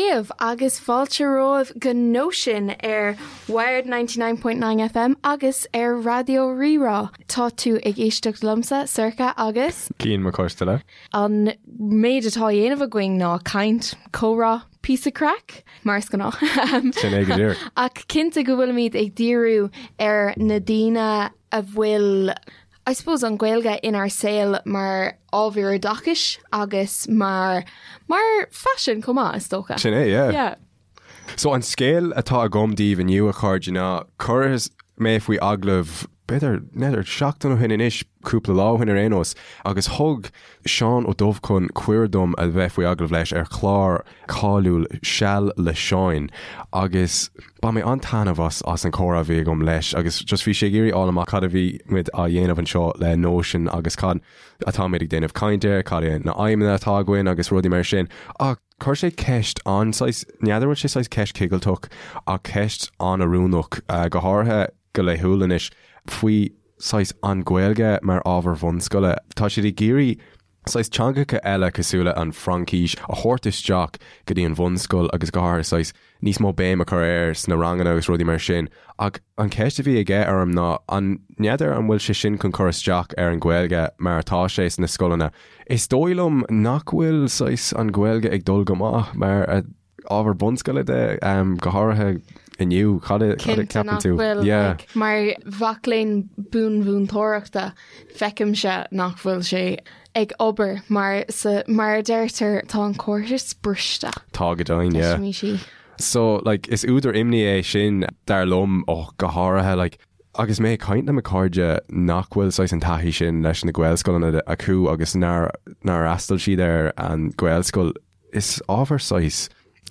daoibh agus fáilte romhaibh go Nóisean ar Wired 99.9 FM agus ar Raidió Rí-Rá. Tá tú ag éisteacht liomsa, Sorcha, agus. Cian Mac Coisteala. An méid atá á dhéanamh againn ná caint, comhrá, píosa craic, mar is gnáth. Sin é go díreach. Ach cinnte go bhfuilimid ag díriú ar na daoine a bhfuil I suppose an Ghaeilge inár saol mar ábhar oideachais agus mar mar phaisean chomh maith, is dócha. Sin é, yeah. Yeah. So an scéal atá agam daoibh inniu, a chairde, ná cuireadh mé faoi agallamh b'fhéidir, n'fheadar, seachtain ó shin anois, cúpla lá ó shin ar aon nós, agus thug Seán Ó Dubhchon cuireadh dom a bheith faoi agallamh leis ar chlár cáiliúil Seal le Seáin agus bhain mé an-taitneamh as as an chomhrá a bhí agam leis agus just bhí sé ag iarraidh fháil amach cad a bhí muid á dhéanamh anseo le Nóisean agus cad atáimid ag déanamh caint air, cad é na aidhmeanna atá againn agus rudaí mar sin. Ach chuir sé ceist an-saghas, n'fheadar bhfuil sé saghas ceist chigilteach ach ceist an-oiriúnach, go háirithe go laethúil anois, faoi saghas an Ghaeilge mar ábhar bhunscoile. Tá siad ag iarraidh saghas teangacha eile cosúil le an Fraincis a thabhairt isteach go dtí an bhunscoil agus go háirithe saghas níos mó béim a chur air sna ranganna agus rudaí mar sin. Ach an cheist a bhí aige orm ná an n'fheadar an bhfuil sé sin chun cur isteach ar an Ghaeilge mar atá sé sna scoileanna. Is dóigh liom nach bhfuil saghas an Ghaeilge ag dul go maith mar a ábhar bunscoile de, go háirithe inniu. Cad a Cinnte cheapann nach tú? bhfuil. Yeah. Like, mar mhac léinn bunmhúinteoireachta, feicimse nach bhfuil sé ag obair mar sa, mar a deirtear, tá an córas briste. Tá go deimhin, yeah. Deisimis í. So, like, is údar imní é sin, dar liom, ó, go háirithe, like, agus mé ag caint le mo chairde nach bhfuil saghas an taithí sin leis na Gaelscoileanna acu agus nár, nár fhreastail siad ar an Ghaelscoil, Is ábhar saghas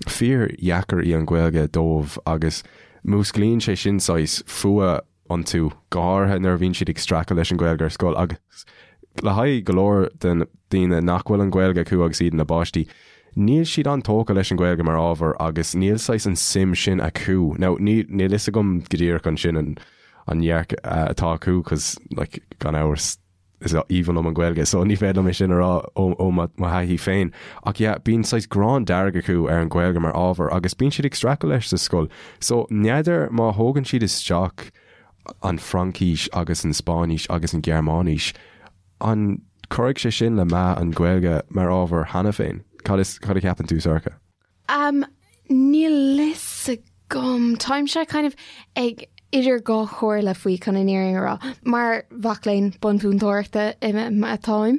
fíor-dheacair í an Ghaeilge dóibh agus músclaíonn sé sin saghas fuath iontu, go háirithe nuair a bhíonn siad ag streachailt leis an Ghaeilge ar scoil agus le haghaidh go leor de na daoine nach bhfuil an Ghaeilge acu agus iad ina bpáistí, níl siad an-tógtha leis an Ghaeilge mar ábhar agus níl saghas an suim sin acu. Now, níl fhios agam go díreach ansin an an dearcadh atá acu 'cause like gan amhras, is aoibhinn liom an Ghaeilge so ní féidir liom é sin a rá ó mo thaithí féin. Ach yeah, bíonn saghas gráin dearg acu ar an Ghaeilge mar ábhar agus bíonn siad ag streachailt leis sa scoil. So n'fheadar má thógann siad isteach an Fraincis agus an Spáinnis agus an Ghearmáinis, an cuirfidh sé sin le meath an Ghaeilge mar ábhar cheana féin? Cad is, cad a cheapann tú, Sorcha? Um, níl fhios agam. Táimse kind of ag idir dhá chomhairle faoi chun an fhírinne a rá. Mar mhac léinn bunmhúinteoireachta atáim,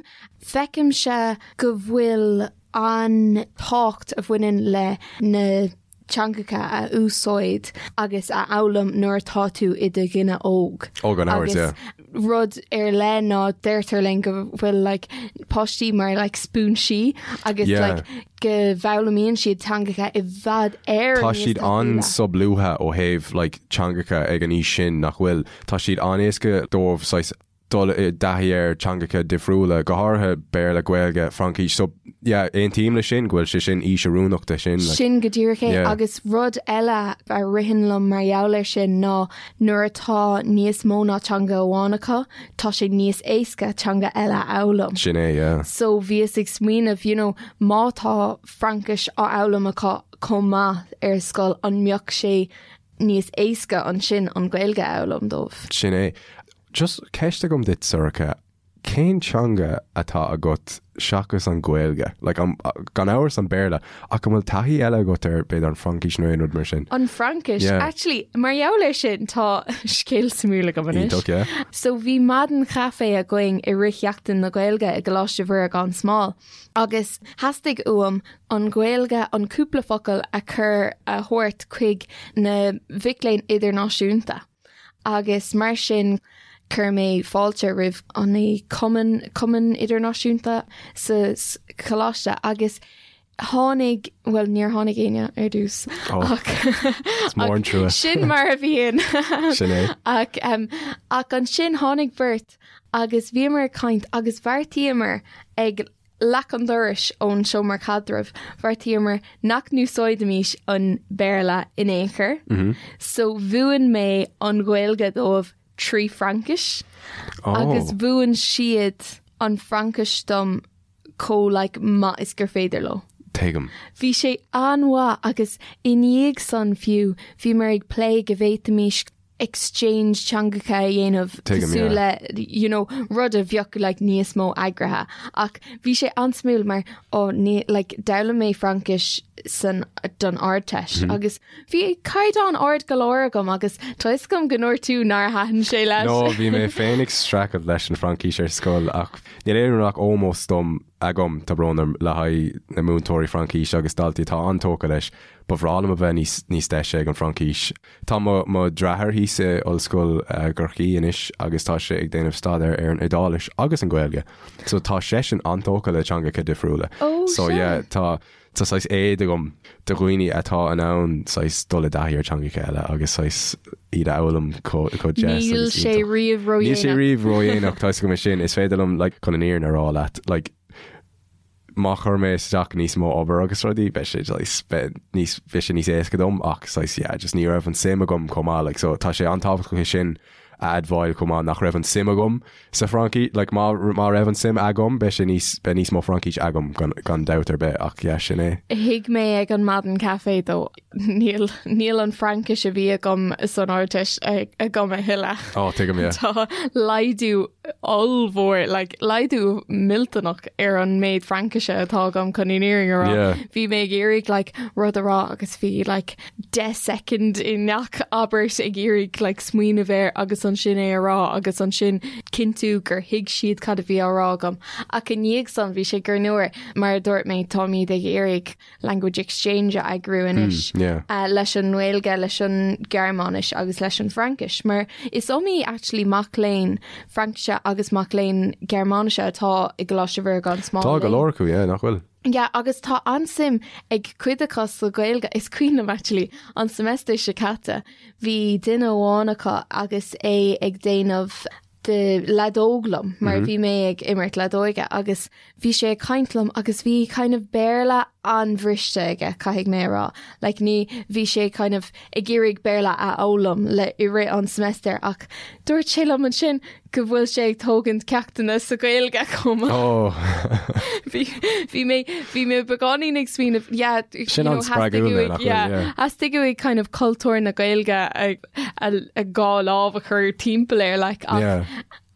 feicimse go bhfuil an tábhacht a bhaineann le na teangacha a úsáid agus a fhoghlaim nuair atá tú i do dhuine óg. Ó, gan amhras, Agus yeah. rud ar leith ná deirtear linn go bhfuil like, páistí mar like, spúinsí agus Yeah. like, go bhfoghlaimíonn siad teangacha i bhfad Éireann Tá níos siad tapúla. an-solúbtha ó thaobh like, teangacha ag an aois sin nach bhfuil. Tá siad an-éasca dóibh saghas dul i dtaithí ar teangacha difriúla, go háirithe Béarla, Gaeilge, Fraincis. So, yeah, aontaím leis sin go bhfuil sé sin aois oiriúnach de sin. Like, Sin go díreach é Yeah. agus rud eile a ritheann liom mar gheall air sin ná Nuair atá níos mó ná teanga amháin acu, tá sé níos éasca teanga eile a fhoghlaim. Sin é, yeah. So bhíos ag smaoineamh, you know, má tá Fraincis á fhoghlaim acu chomh maith ar scoil, an mbeadh sé níos éasca ansin an Ghaeilge a fhoghlaim dóibh? Sin é. Just ceist agam duit, Sorcha. Cén teanga atá agat seachas an Ghaeilge? Like, an, gan amhras an Béarla, ach an bhfuil taithí eile agat ar, b'fhéidir, an Fraincis nó aon rud mar sin? An Fraincis? Yeah. Actually, mar gheall air sin, tá scéal suimiúil agam anois. Iontach, yeah. So bhí maidin chaife againn i rith Sheachtain na Gaeilge i gColáiste Mhuire gan Smál agus theastaigh uaim an Ghaeilge, an cúpla focal a chur, a thabhairt chuig na mhic léinn idirnáisiúnta. Agus mar sin chuir mé fáilte roimh an cumann, cumann idirnáisiúnta sa choláiste agus tháinig, bhuel níor tháinig éinne ar dtús ach Is mór an trua. sin mar a bhíonn. Sin é. Ach, ach ansin tháinig beirt agus bhíomar ag caint agus bheartaíomar ag leac an dorais ón seomra caidrimh, bheartaíomar nach n-úsáidfimis an Béarla in aon chor, so mhúin mé an Ghaeilge dóibh trí Fraincis agus mhúin siad an Fraincis dom chomh like maith is gur féidir leo. Tuigim. Bhí sé an-mhaith agus i ndiaidh san fiú bhíomar ag plé go bhféadfaimis exchange teangacha a dhéanamh Tuigim, cosúil yeah. le you know, rud a bheadh like, níos mó eagraithe. Ach bhí sé an-suimiúil mar ó ní like, d'fhoghlaim mé Fraincis san don Ardteist mm -hmm. agus bhí caighdeán ard go leor agam agus tá fhios agam go ndúirt tú nár thaitin sé leis. No, bhí mé féin ag streachailt leis an Fraincis ar scoil ach níl aon ach ómós dom agam tá brón orm le haghaidh na múinteoirí Fraincise agus daltaí atá an-tógtha leis. Ba bhreá liom a bheith níos níos deise ag an Fraincis. Tá mo mo dheartháir thíos i Ollscoil Chorcaí anois agus tá sé ag déanamh staidéar ar an Iodáilis agus an Ghaeilge. So tá seisean an-tógtha le teangacha difriúla. Oh, So sea. yeah, tá tá saghas éad agam do dhaoine atá in ann saghas dul i dtaithí ar teangacha eile agus saghas iad a fhoghlaim chomh chomh deas Níl agus sé iontach. riamh Níl sé ródhéanach. riamh ródhéanach, tá fhios agam é sin. Is féidir liom like chun an fhírinne a rá leat like má chuir mé isteach níos mó obair agus rudaí, beidh sé saghas beidh níos beidh sé níos éasca dom ach saghas yeah just ní raibh an suim agam chomh maith like so tá sé an-tábhachtach é sin a admháil chomh maith nach raibh an suim agam sa Fhraincis like má má raibh an suim agam beidh sé níos beidh níos mó Fraincis agam gan gan dabht ar bith ach yeah sin é. Thuig mé ag an maidin caife though níl níl an Fraincis a bhí agam san Ardteist agam a thuilleadh. Ó tuigim yeah. Tá laghdú ollmhór like laghdú millteanach ar an méid Fraincise atá agam chun an fhírinne a rá. Yeah. Bhí mé ag iarraidh like rud a rá agus bhí like 10 soicind i ngach abairt ag iarraidh like smaoineamh air agus ansin é a rá agus ansin cinntiú gur thuig siad cad a bhí á rá agam. Ach i ndiaidh san bhí sé greannmhar mar a dúirt mé táimid ag iarraidh language exchange a eagrú anois mm, yeah. uh, leis an nGaeilge, leis an Gearmáinis agus leis an Fraincis, mar is iomaí actually mac léinn Fraincise agus mac léinn Gearmáinise atá i gColáiste Mhuire gan Smál. Tá go leor acu, yeah, nach bhfuil? Yeah, agus tá an-suim ag cuid acu sa Ghaeilge. Is cuimhin liom actually an semester seo caite bhí duine amháin acu agus é ag déanamh de leadóg liom mar bhí mé ag imirt leadóige agus bhí sé ag caint liom agus bhí kind of Béarla an-bhriste aige caithfidh mé a rá. Like ní bhí sé kind of ag iarraidh Béarla a fhoghlaim le i rith an semester ach dúirt sé liom ansin go bhfuil sé ag tógaint ceachtanna sa Ghaeilge chomh maith. Oh. Bhí bhí mé bhí mé beagáinín ag smaoineamh yeah, Sin you know, an-spreagúil theastaigh nach bhfuil, yeah, yeah. theastaigh uaidh kind of cultúr na Gaeilge a a a dhá lámh a chur timpeall air like ach Yeah.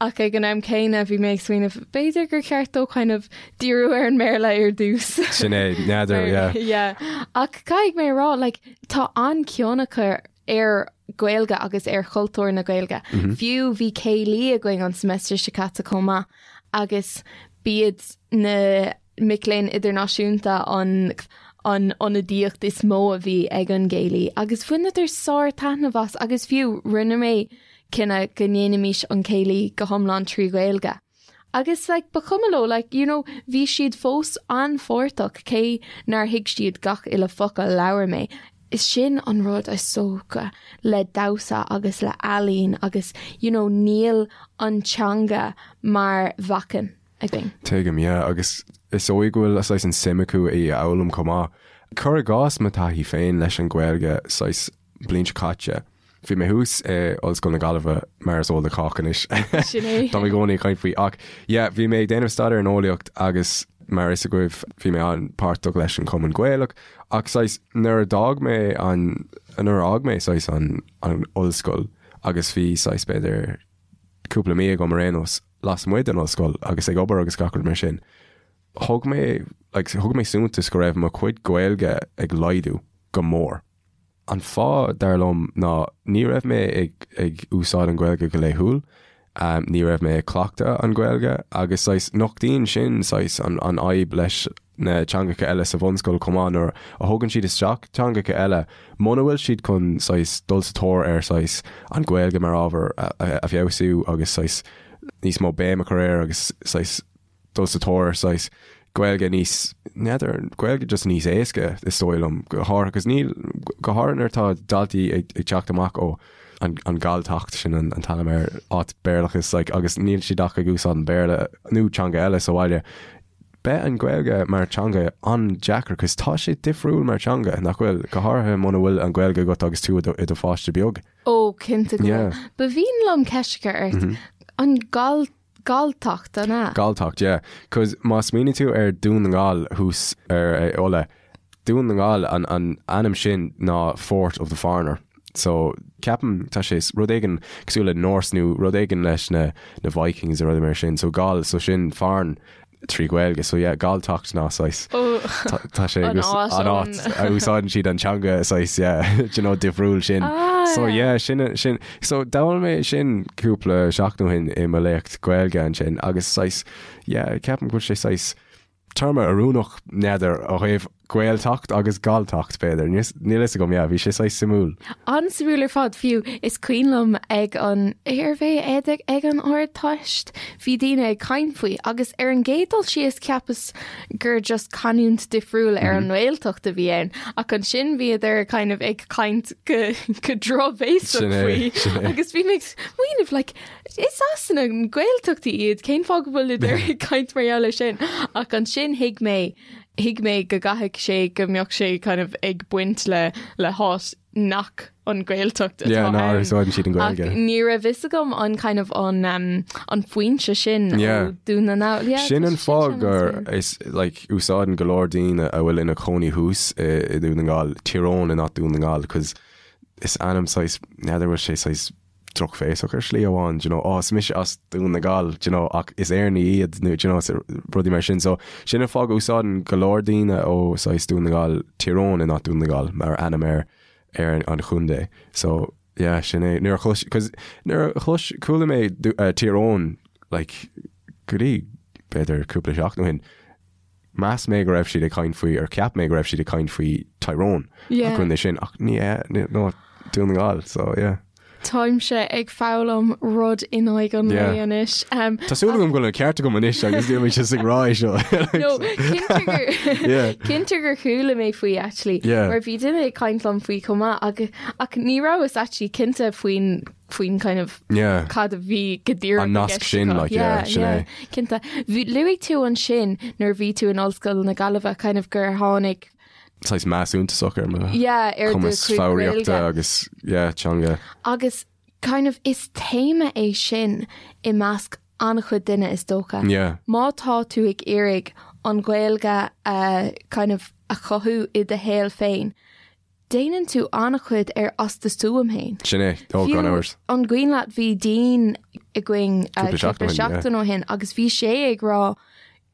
ach ag an am céanna bhí mé ag smaoineamh b'fhéidir gur cheart dó kind of díriú ar an mBéarla ar dtús. Sin é, n'fheadar, yeah. Yeah. Ach caithfidh mé a rá like tá an-chion acu ar Gaeilge agus ar chultúr na Gaeilge. Fiú bhí céilí againn an semester seo caite chomh maith agus b'iad na mic léinn idirnáisiúnta an an ionadaíocht is mó a bhí ag an gcéilí agus bhaineadar sár-taitneamh as agus fiú rinne mé cinneadh go ndéanfaimis an céilí go hiomlán trí Ghaeilge. Agus like ba chuma leo like you know bhí siad fós an-pháirteach cé nár thuig siad gach uile focal a labhair mé. Is sin an rud is dócha le damhsa agus le ealaín agus you know níl an teanga mar bhacainn againn. Tuigim, yeah, agus is dóigh go bhfuil saghas an suim acu í a fhoghlaim chomh maith. Cuir i gcás mo taithí féin leis an Ghaeilge saghas bliain seo caite, Bhí mé thuas i Ollscoil na Gaillimhe, mar is eol do chách anois. Sin é. Tá mé i gcónaí ag caint faoi. Ach yeah, bhí mé ag déanamh staidéar in eolaíocht agus mar is agaibh bhí mé an-páirteach leis an Chumann Gaelach. Ach saghas nuair a d'fhág mé an, nuair a fhág mé saghas an, an ollscoil agus bhí saghas b'fhéidir cúpla mí agam ar aon nós lasmuigh den ollscoil agus ag obair agus gach rud mar sin, thug mé, like, thug mé suntas go raibh mo chuid Gaeilge ag laghdú go mór. An fáth, dar liom, ná ní raibh mé ag ag úsáid an Ghaeilge go laethúil, ní raibh mé ag cleachtadh an Ghaeilge agus saghas nochtaíonn sin saghas an an fhadhb leis na teangacha eile sa bhunscoil chomh maith nuair a thugann siad isteach teangacha eile muna bhfuil siad chun saghas dul sa tóir ar saghas an Ghaeilge mar ábhar a feabhsú agus saghas níos mó béim a chur air agus saghas dul sa tóir ar saghas Gaeilge níos, n'fheadar, Gaeilge just níos éasca is dóigh liom, go háirithe, cos níl, go háirithe nuair atá daltaí ag, ag teacht amach ó an, an Galltacht, sin an, an t-ainm ar áit Béarlachas, like, agus níl siad ach ag úsáid an Béarla nó teanga eile sa bhaile. Beidh an Ghaeilge mar teanga an-deacair, cos tá sé difriúil mar teanga, nach bhfuil, go háirithe muna bhfuil an Ghaeilge agat agus tú i do, i do pháiste beag. Ó, cinnte go bhfuil. Yeah. Ba mhian liom ceist a chur ort. An Gall Galltacht, an ea? Galltacht, yeah. Cos má smaoiníonn tú ar Dún na nGall thuas ar Uladh, Dún na nGall, an an ainm sin ná Fort of the Foreigner. So ceapaim tá sé rud éigin cosúil le Norse nó rud éigin leis na na Vikings nó rudaí mar sin. So Gall, so sin foreign trí Ghaeilge. So yeah, Galltacht ná saghas. Tá sé An áit an áit a úsáideann siad an teanga saghas yeah, do you know, difriúil sin. Ah, So yeah. yeah, sin sin so d'fhoghlaim mé sin cúpla seachtain ó shin i mo léacht Gaeilge ansin agus saghas yeah, ceapaim go bhfuil sé saghas téarma oiriúnach n'fheadar ó thaobh Gaeltacht agus Galltacht b'fhéidir. Níl níl fhios agam yeah, bhí sé saghas suimiúil. An-suimiúil ar fad, fiú is cuimhin liom ag an arbh é ag ag an Ardteist bhí daoine ag caint faoi agus ar an gcéad dul síos cheapas gur just canúint difriúil ar an nGaeltacht a bhí ann ach ansin bhíodar kind of ag caint go go drochbhéasach Sin é, faoi sin é. agus bhí mé ag smaoineamh like Is as na Gaeltachtaí iad, cén fáth go bhfuileadar ag caint mar gheall air sin? Ach ansin thuig mé, thuig mé go gcaithfidh sé go mbeadh sé kind of ag baint le le háit nach an Ghaeltacht atá Yeah, ná ann. úsáideann siad an Ach Ghaeilge. ní raibh fhios agam an kind of an um, an foinse sin Yeah. ó Dún na nGall. Yeah, Sin tá an sé fáth sin gur an-suimiúil. is like úsáideann go leor daoine a bhfuil ina cónaí thuas i i Dún na nGall, Tír Eoghain and not Dún na nGall, 'cause is ainm saghas, n'fheadar bhfuil sé saghas drochbhéasach ar shlí amháin, do you know, oh, is mise as Dún na nGall, do you know, ach is Éireannaigh iad nó, do you know, rudaí mar sin. So, sin an fáth go úsáideann go leor daoine ó saghas Dún na nGall, Tír Eoghain and not Dún na nGall mar ainm ar ar an chontae. So, yeah, sin é. Nuair a chlois, cos nuair a chlois, chuala mé uh, Tír Eoghain, like, go dtí, b'fhéidir cúpla seachtain ó shin, Mheas mé go raibh siad ag caint faoi, or cheap mé go raibh siad ag caint faoi Tyrone, Yeah. an contae sin, ach ní hea, ní, no, Dún na nGall, so yeah. Táimse ag foghlaim rud in aghaidh an Yeah. lae anois. Um, Tá súil agam go bhfuil an ceart agam anois agus níl mé just ag rá é seo. No, cinnte gur Yeah. cinnte gur chuala mé faoi actually Yeah. mar bhí duine ag caint liom faoi chomh maith ach, ach ní rabhas actually cinnte faoin faoin kind of Yeah. cad a bhí go díreach An i nasc gceist sin, acu. like, yeah, sin é. Cinnte. Bhí- Luaigh tú ansin nuair a bhí tú in Ollscoil na Gaillimhe kind of gur tháinig Saghas meath suntasach ar mo yeah, ar do cumas chuid foghraíochta Gaeilge. agus yeah, teanga. Agus kind of is téama é sin i measc an-chuid duine is dócha. Yeah. Má tá tú ag iarraidh an Ghaeilge a kind of a chothú i do shaol féin, Déanann tú an-chuid ar as do stuaim féin. Sin é, ó, gan amhras. An cuimhin leat bhí Dean againn Cúpla cúpla seachtain ó shin, seachtain ó shin agus bhí sé ag rá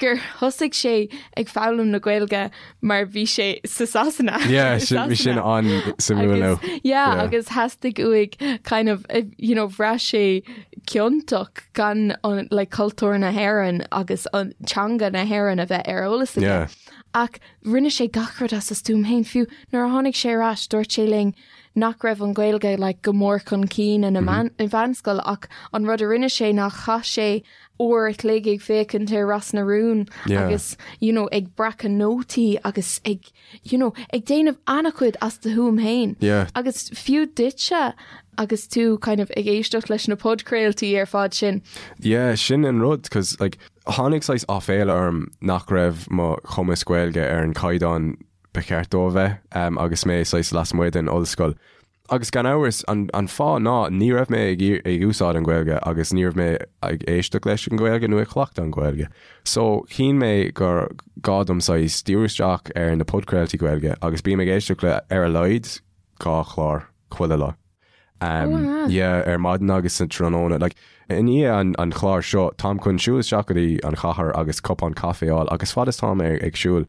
gur thosaigh sé ag foghlaim na Gaeilge mar bhí sé sa Sasana. Yeah, sin, bhí sin an-suimiúil nó. Agus, yeah, Yeah. agus theastaigh uaidh kind of, eh, you know, bhraith sé ciontach gan an, like, cultúr na hÉireann agus an teanga na hÉireann a bheith ar eolas aige. Yeah. Ach Rinne sé gach rud as a stuaim féin, fiú nuair a tháinig sé ar ais dúirt sé linn nach raibh an Ghaeilge like go mór chun cinn ina mheánscoil ach an rud a rinne sé ná chaith sé uair a chloig ag féachaint ar Ros na Rún Yeah. agus you know ag breacadh nótaí agus ag you know ag déanamh an-chuid as do thuaim féin. Yeah. Agus fiú duitse agus tú kind of ag éisteacht leis na podchraoltaí ar fad sin. Yeah, sin an rud, 'cause like Tháinig saghas áiféala orm nach raibh mo chumas Gaeilge ar an chaighdeán ba cheart dó a bheith agus mé saghas lasmuigh den ollscoil. Agus gan amhras, an fáth ná ní raibh mé ag úsáid an Ghaeilge agus ní raibh mé ag éisteacht leis an Ghaeilge nó ag cleachtadh an Ghaeilge. So, chinn mé gur gá dom saghas díriú isteach ar na podchraoltaí Gaeilge agus bím ag éisteacht le ar a laghad 2 chlár chuile lá. Um, yeah, ar maidin agus sa tráthnóna. Like, i ndiaidh an, an chláir seo, táim chun siúl isteach go dtí an chathair agus cupán caife a fháil agus fad is táim ag, ag siúl,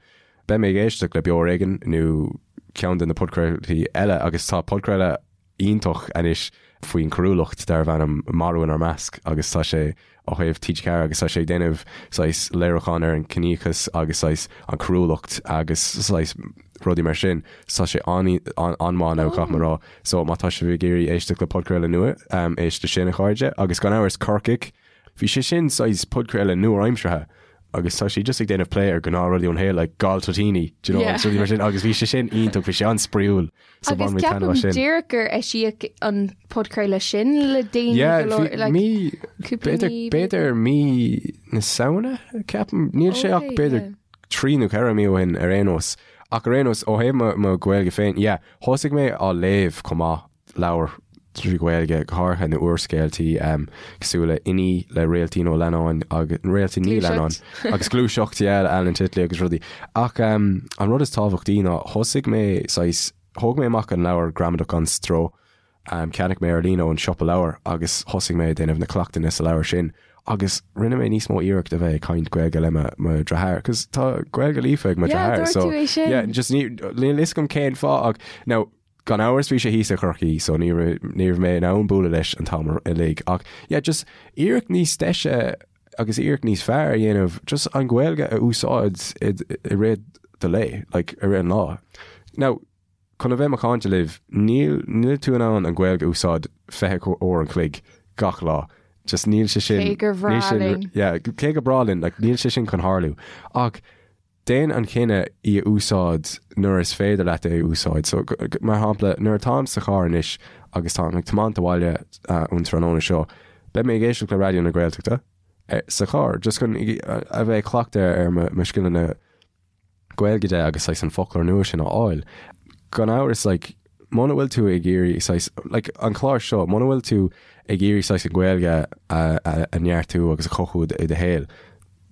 beidh mé ag éisteacht le Beo Ar Éigean nó ceann de na podchraoltaí eile agus tá podchraoladh iontach anois faoin choiriúlacht darbh ainm Marú inár Measc agus tá sé ó thaobh TG4 agus tá sé ag déanamh saghas léiriúchán ar an ciníochas agus saghas an choiriúlacht agus saghas rudaí mar sin. So tá sé an-mhaith now caithfidh mé a rá. So má tá sibh ag iarraidh éisteacht le podchraoladh nua, éist le sin a chairde. Agus gan amhras Corcaigh, bhí sé sin saghas podchraoladh nua-aimseartha agus tá sé just ag déanamh plé ar gnáthrudaí ón shaol like galltoitíní, do you know, agus rudaí mar sin agus bhí sé sin iontach, bhí sé an-spraíúil. So Agus bhain mé taitneamh ceapaim as sin. díreach gur eisíodh an podchraoladh sin le déanaí Yeah, go leor, bhí like, mí, cúpla b'fhéidir, mí, b'fhéidir mí na Samhna, ceapaim, níl sé ach Okay, b'fhéidir yeah. 3 nó 4 mí ó shin ar aon nós. Ach ar aon nós, ó thaobh mo, mo Ghaeilge féin, yeah, thosaigh mé á léamh chomh maith, leabhar. trí Ghaeilge, go háirithe na úrscéaltaí cosúil le Inní le Réaltín Ó Leannáin agus Réaltín Ní Leannáin agus Gluaiseacht yeah, le Alan Titley agus rudaí. Ach um, an rud is tábhachtaí ná thosaigh mé saghas, thóg mé amach an leabhar Gramadach gan Stró, um, cheannaigh mé ar líne ón siopa leabhar agus thosaigh mé ag déanamh na cleachtanna sa leabhar sin agus rinne mé níos mó iarracht a bheith ag caint Gaeilge le mo, mo dheartháir, cos tá Gaeilge líofa ag mo Yeah, dheartháir, dúirt so tú é sin. yeah, just ní, níl fhios agam cén fáth ach now, Gan amhras bhí sé thíos i gCorcaigh so ní raibh ní raibh mé in ann bualadh leis an t-am uilig ach yeah just iarracht níos deise agus iarracht níos fearr a dhéanamh just an Ghaeilge a úsáid i i rith do lae like i rith an lá. Now chun a bheith macánta libh níl níl tú in ann an Ghaeilge a úsáid 20 uair an chloig gach lá. Just níl sé sin Cé gur bhreá níl sin linn. yeah cé gur breá linn like níl sé sin chun tharlú ach Déan an cinneadh í a úsáid nuair is féidir leat é a úsáid. So, mar shampla, nuair atáim sa charr anois agus táim ag tiomáint abhaile ón tráthnóna seo, beidh mé ag éisteacht le Raidió na Gaeltachta sa charr, just chun a bheith ag cleachtadh ar mo scileanna Gaeilge de agus saghas an foclóir nua sin a fháil. Gan amhras, like, muna bhfuil tú ag iarraidh saghas, like, an clár seo, muna bhfuil tú ag iarraidh saghas an Ghaeilge a neartú agus a chothú i do shaol,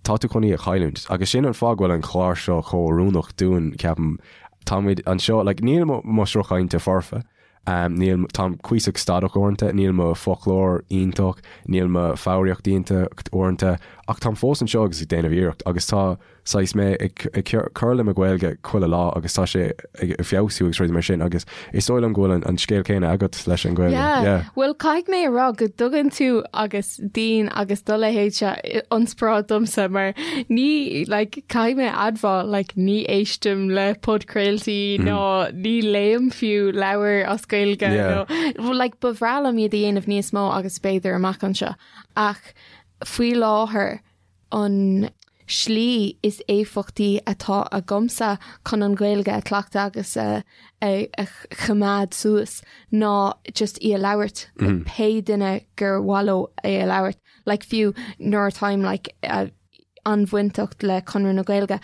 tá tú chun í a chailliúint. Agus sin an fáth go bhfuil an clár seo chomh oiriúnach dúinn, ceapaim. Táimid anseo, like, níl mo, mo shruth cainte foirfe, um, níl, táim cuíosach stadach uaireanta, níl mo foclóir iontach, níl mo foghraíocht iontach uaireanta, ach táim fós anseo agus ag déanamh iarracht agus tá saghas mé ag, ag cur le mo Ghaeilge chuile lá agus tá sé ag feabhsú agus rudaí mar sin agus is dóigh liom go bhfuil an, an scéal céanna agat leis an Ghaeilge. Yeah. Yeah. Bhuel, caithfidh mé a rá go dtugann tú agus daoine agus do leithéidse ionspráid domsa mar ní like, caithfidh mé a admháil like, ní éistim le podchraoltaí mm. ná ní léim fiú leabhar as Gaeilge yeah. nó like, ba bhreá liom iad a dhéanamh níos mó agus b'fhéidir amach anseo ach faoi láthair an slí is éifeachtaí atá agamsa chun an Ghaeilge a chleachtadh agus a choimeád suas ná just í a labhairt le pé duine gur mhaith leo é a labhairt. Like fiú nuair atáim like an-bhainteach le Conradh na Gaeilge,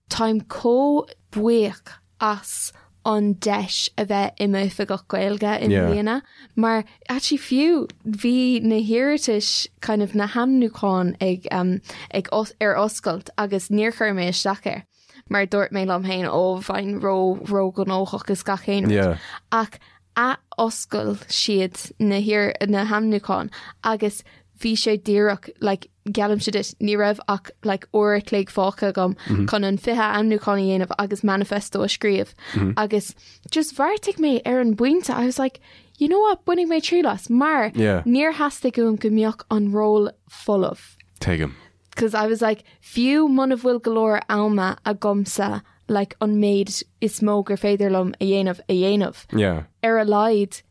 Táim chomh buíoch as an deis a bheith i m'oifigeach Gaeilge i mbliana mar actually fiú bhí na hiarratais kind of na hainmniúcháin ag um, ag os, ar oscailt agus níor chuir mé isteach air mar dúirt mé liom féin ó bheinn ró róghnóthach is gach aon rud. Yeah. Ach ath-oscail siad na hiar na hainmniúcháin agus bhí sé díreach like geallaimse duit ní raibh ach like uair a chloig fágtha agam chun an 20 ainmniúchán a dhéanamh agus manifesto a scríobh agus just bheartaigh mé ar an bpointe I was like you know what bainfidh mé triail as mar Yeah. níor theastaigh uaim go mbeadh an ról folamh. Tuigim. Cause I was like fiú muna bhfuil go leor ama agamsa like an méid is mó gur féidir liom a dhéanamh a dhéanamh. Yeah. Ar a laghad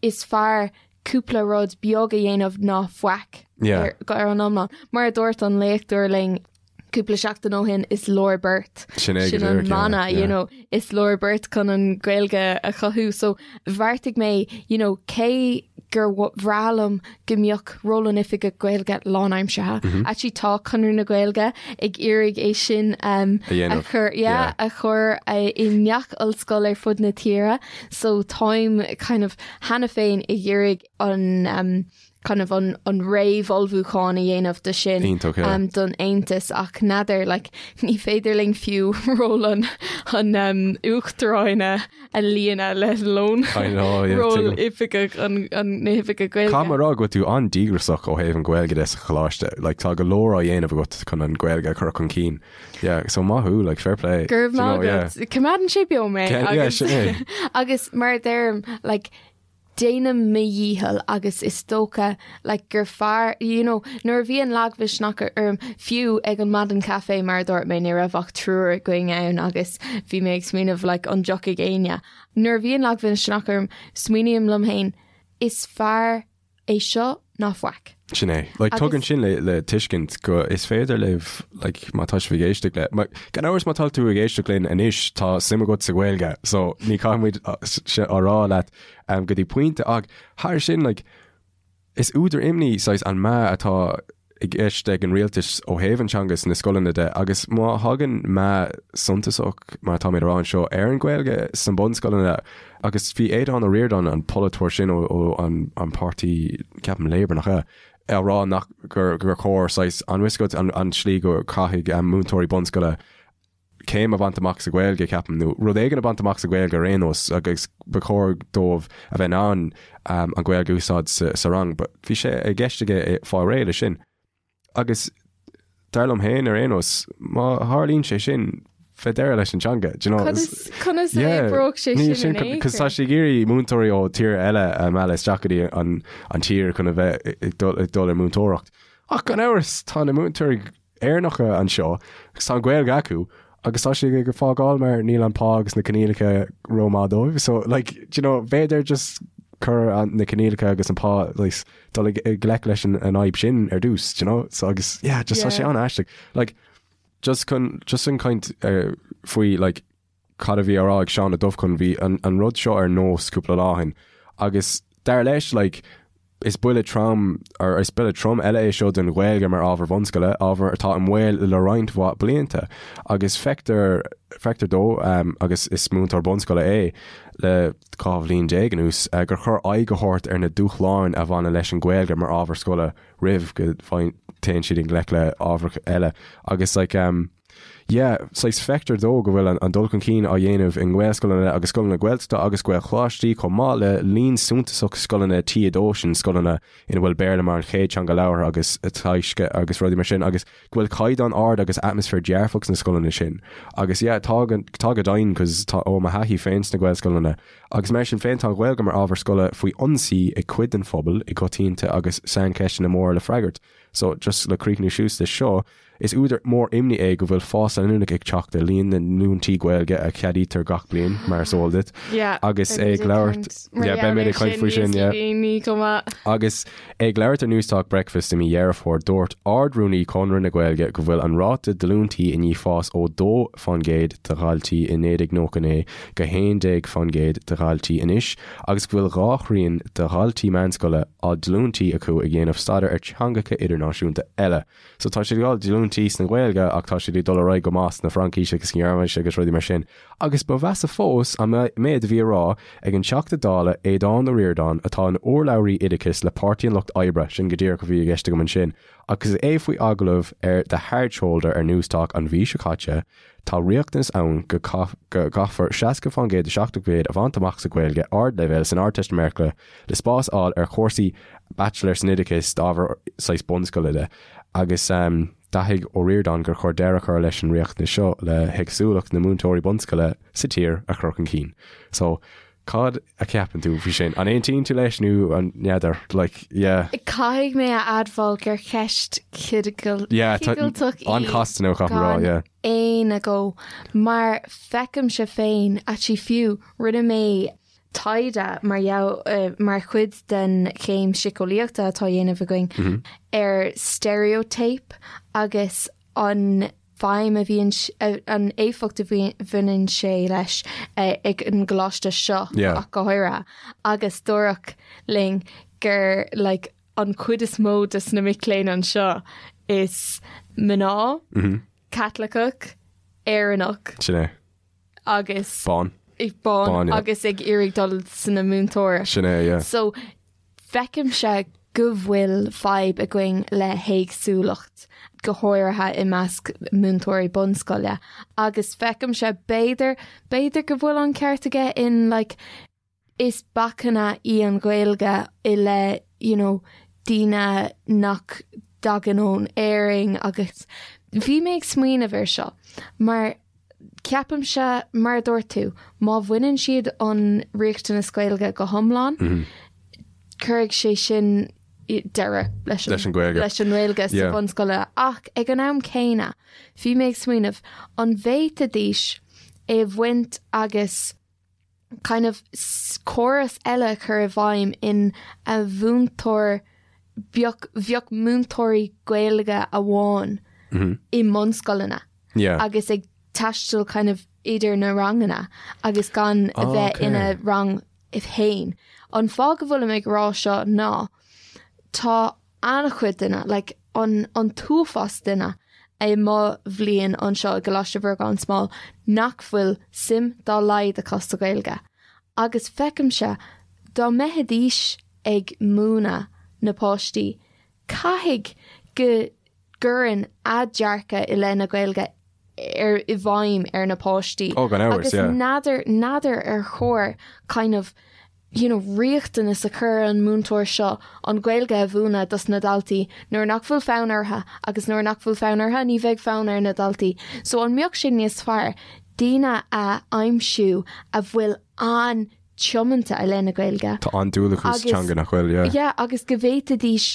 is fearr cúpla rud beag a dhéanamh ná faic Yeah. ar, ar an iomlán. Mar a dúirt an léachtóir linn cúpla seachtain ó shin is leor beart. Sin é go Sin an díreach, yeah, mana, yeah. you know, is leor beart chun an Ghaeilge a chothú. So bheartaigh mé, you know, cé gur bhreá liom go mbeadh ról an Oifigigh Gaeilge lánaimseartha. Mhm. Actually tá Conradh na Gaeilge ag iarraidh é sin um, A dhéanamh. a chur yeah, Yeah. a chur uh, i ngach ollscoil ar fud na tíre, so táim kind of cheana féin ag iarraidh an um, kind of an, an réamhullmhúchán a dhéanamh do sin Iontach, yeah. um, don aontas ach n'fheadar like, ní féidir linn fiú ról an, an um, uachtaráin a, a líonadh let alone I know, yeah, ról tuigim. oifigeach an, an na hoifige Gaeilge. Caithfidh mé a rá go bhfuil tú an-díograiseach ó thaobh an Ghaeilge de sa choláiste. Like, tá go leor á dhéanamh agat chun an Ghaeilge a chur chun cinn. Yeah, so maith thú, like, fair play. Go raibh Do you maith know, yeah. agat. Coimeádann sé beo mé. Yeah, agus, sin é. agus mar a deirim, like, déanaim mo dhícheall agus is dócha like gur fearr you know nuair a bhíonn lagmhisneach orm fiú ag an maidin caife mar a dúirt mé ní raibh ach triúr againn ann agus bhí mé ag smaoineamh like an dtiocfaidh éinne. Nuair a bhíonn lagmhisneach orm smaoiním liom féin is fearr é seo ná faic. Sin é. Like, Agus- tugann sin le, le tuiscint go is féidir libh, like, má tá sibh ag éisteacht le, ma, gan amhras má tá tú ag éisteacht linn anois tá suim agat sa Ghaeilge, so ní chaithfimid a rá leat um, go dtí pointe ach thar sin, like, is údar imní saghas an meath atá i gceist ag an rialtas ó thaobh an teanga sna scoileanna de agus má thagann meath suntasach, mar atá mé a rá anseo, ar an Ghaeilge sna bunscoileanna agus bhí Aodhán Ó Ríordáin, an polaiteoir sin ó an páirtí, ceapaim Labour nach ea, á rá nach gur chóir saghas an bhfuil a fhios agat an tslí go caithfidh múinteoirí bunscoile céim a bhaint amach sa Ghaeilge, ceapaim, nó rud éigin a bhaint amach sa Ghaeilge ar aon nós agus ba chóir dóibh a bheith in ann an Ghaeilge a úsáid sa rang. But bhí sé i gceist aige fáil réidh leis sin. Agus dar liom féin ar aon nós, má tharlaíonn sé sin, beidh deireadh leis an teanga. Do you know? Conas, conas a oibreodh sé sin in aon Cos tá sé ag iarraidh múinteoirí ó tír eile a mhealladh isteach go dtí an, an tír chun a bheith ag dul, ag dul ar múinteoireacht. Ach gan amhras, tá na múinteoirí Éireannacha anseo agus tá an Ghaeilge acu agus tá siad ag fágáil mar níl an pá agus na coinníollacha rómhaith dóibh. So like, do you know, b'fhéidir just cur an, na coinníollacha agus an pá like, dul i ngleic leis an, an fhadhb sin ar dtús, do you know? So agus yeah, just tá sé an-aisteach. Like, just chun, just an caint uh, faoi like, cad a bhí á rá ag Seán Ó Dubhchon, bhí an, an rud seo ar Nós cúpla lá ó shin agus dar leis like, is buille trom or is buille trom eile é seo don Ghaeilge mar ábhar bunscoile, ábhar atá i mbaol le roinnt mhaith blianta agus feictear feictear dó um, agus is múinteoir bunscoile é le 12 bhliain anuas uh, gur chóir aghaidh a thabhairt ar na dúshláin a bhaineann leis an Ghaeilge mar ábhar scoile roimh go dtéann siad i ngleic le ábhar eile agus like, um, Yeah, saghas feictear dó go bhfuil an dul chun cinn á dhéanamh i nGaelscoileanna agus scoileanna Gaeltachta agus Gaelcholáistí chomh maith le líon suntasach scoileanna T2, sin scoileanna ina bhfuil Béarla mar an chéad teanga labhartha agus teagaiscthe agus rudaí mar sin agus go bhfuil caighdeán ard agus atmaisféar dearfach sna scoileanna sin. Agus yeah, tá tá go deimhin cos tá ó mo thaithí féin sna Gaelscoileanna agus mar sin féin tá an Ghaeilge mar ábhar scoile faoi ionsaí ag cuid den phobal i gcoitinne agus saincheisteanna móra le freagairt. So just le críochnú suas leis seo, Is údar mór imní é go bhfuil fás leanúnach ag teacht ar líon na ndíolúintí Gaeilge a cheadaítear gach bliain, mar is eol duit. Agus é ag labhairt, yeah, beimid ag caint faoi sin, yeah. Agus é ag labhairt ar Newstalk Breakfast i mí Dheireadh Fómhair, dúirt Ard-Rúnaí Chonradh na Gaeilge go bhfuil an ráta díolúintí i ndiaidh fás ó 2% de dhaltaí i 1999 go 11% de dhaltaí anois agus go bhfuil dhá thrian de dhaltaí meánscoile á ndíolúintí acu ag déanamh staidéar ar theangacha idirnáisiúnta eile. So tá siad ag fáil díolúintí sna Gaeilge ach tá siad ag dul ar aghaidh go maith sna Fraincis agus Gearmáinis agus rudaí mar sin. Agus ba mheasa fós an méid a bhí á rá ag an Teachta Dála Aodhán Ó Ríordáin atá ina urlabhraí oideachais le Páirtí an Lucht Oibre, sin go díreach a bhí i gceist agam ansin, agus é faoi agallamh ar The Hard Shoulder ar Newstalk an mhí seo caite, Tá riachtanas ann go gcaithfear 60% de 70% a bhaint amach sa Ghaeilge ardleibhéil san Ardteistiméireacht le spás a fháil ar chúrsaí baitsiléir san oideachas d'ábhar saghas bunscoile de agus d'aithin Ó Ríordáin gur chóir deireadh a chur leis an riachtanas seo le héagsúlacht na múinteoirí bunscoile sa tír a chur chun cinn. So Cad a cheapann tú faoi sin? An aontaíonn tú leis nó an n'fheadar? Like, yeah. Caithfidh mé a admháil gur ceist Yeah, tá cigilteach í an-chasta nó caithfidh mé rá, gan yeah. aon agó mar feicimse féin actually fiú rinne mé taighde mar gheall mar chuid den chéim síceolaíochta atá á dhéanamh againn ar stereotype agus an feidhm a bhíonn, an éifeacht a bhaineann sé leis ag an gcoláiste seo ach go háirithe agus dúradh linn gur like an chuid is mó de na mic léinn anseo is mná, Caitliceach, Éireannach. Sin é. Agus. Bán. Bán agus ag iarraidh dul sna múinteoireacht. Sin é, yeah. So Feicimse go bhfuil fadhb againn le héagsúlacht, go háirithe i measc múinteoirí bunscoile, agus feicimse b'fhéidir, b'fhéidir go bhfuil an ceart aige in like is bacainn í an Ghaeilge i leith you know daoine nach dtagann ón Éirinn agus bhí mé ag smaoineamh ar seo mar Ceapaimse, mar a dúirt tú, má bhaineann siad an riachtanas Gaeilge go hiomlán, cuirfidh sé sin deireadh leis an Ghaeilge leis an nGaeilge sa bhunscoil. Ach ag an am céanna, bhí mé ag smaoineamh, an bhféadfaidís é a bhaint agus kind of córas eile a chur i bhfeidhm in a mhúinteoir bheadh bheadh múinteoirí Gaeilge amháin i mbunscoileanna agus ag taisteal kind of idir na ranganna agus gan a bheith ina rang féin. An fáth go bhfuilim ag rá seo ná tá an-chuid duine like. an an t-uafás duine i mo bhliain anseo i gColáiste Mhuire gan Smál nach bhfuil suim dá laghad acu sa Ghaeilge. Agus feicimse, dá mbeidís ag múineadh na páistí, caithfidh go gcuireann a dearcadh i leith na Gaeilge ar i bhfeidhm ar na páistí. Oh, gan amhras, Agus yeah. n'fheadar, n'fheadar ar chóir kind of you know, riachtanas a chur ar an múinteoir seo an Ghaeilge a mhúineadh dos na daltaí nuair nach bhfuil fonn orthu agus nuair nach bhfuil fonn orthu ní bheidh fonn ar na daltaí. So an mbeadh sé níos fearr daoine a aimsiú a bhfuil an-tiomanta i leith na Gaeilge. Tá an-dúil acu sa teanga nach bhfuil, yeah. Yeah, agus go bhféadfaidís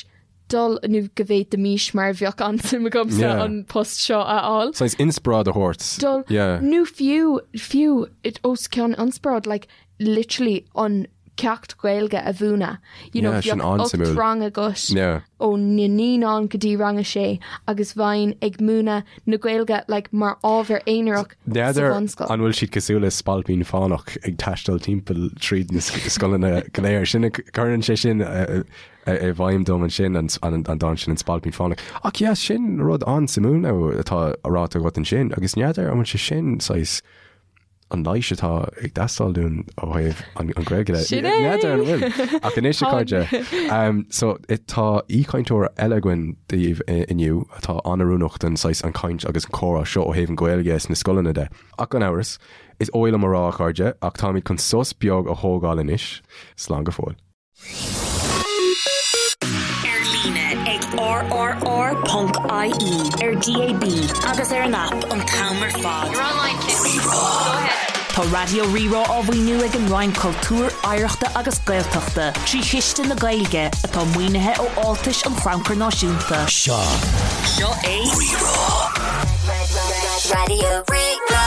dul nó go bhféadfaimis mar bheadh an-suim agamsa Yeah. an post seo a fháil. Saghas inspioráid a thabhairt. Dul Yeah. nó fiú fiú it os cionn inspioráid like literally an ceacht Gaeilge a mhúineadh. You know, Yeah, sin bheadh an-suimiúil. rang agat Yeah. ó na naíonáin go dtí rang a sé agus bheinn ag múineadh na Gaeilge like mar ábhar aonarach sa N'fheadar bhunscoil. an bhfuil siad cosúil le spailpín fánach ag taisteal timpeall tríd na scoileanna go léir. Sin cuireann sé sin i bhfeidhm dom ansin, an dán sin, An Spailpín Fánach. Ach yeah, sin rud an-suimiúil atá ráite agat ansin, agus n'fheadar an bhfuil sé sin saghas an leigheas atá ag teastáil dúinn ó thaobh an Ghaeilge de. Sin é! N'fheadar an bhfuil. Ach anois a chairde, so tá aoichainteoir eile againn daoibh inniu atá an-oiriúnach don saghas an chaint agus an comhrá seo ó thaobh an Ghaeilge sna scoileanna de. Ach gan amhras, is oth liom a rá a chairde, ach táimid chun sos beag a thógáil anois. Slán go fóill. Ar líne ag rrr.ie, ar DAB agus ar an aip an t-am ar fad. Tá Raidió Rí-Rá á mhaoiniú ag an Roinn Cultúir, Oidhreachta agus Gaeltachta trí Chiste na Gaeilge, atá maoinithe ó fháltais an Chrannchuir Náisiúnta. Seo Seo é Rí-Rá. Raidió Rí-Rá.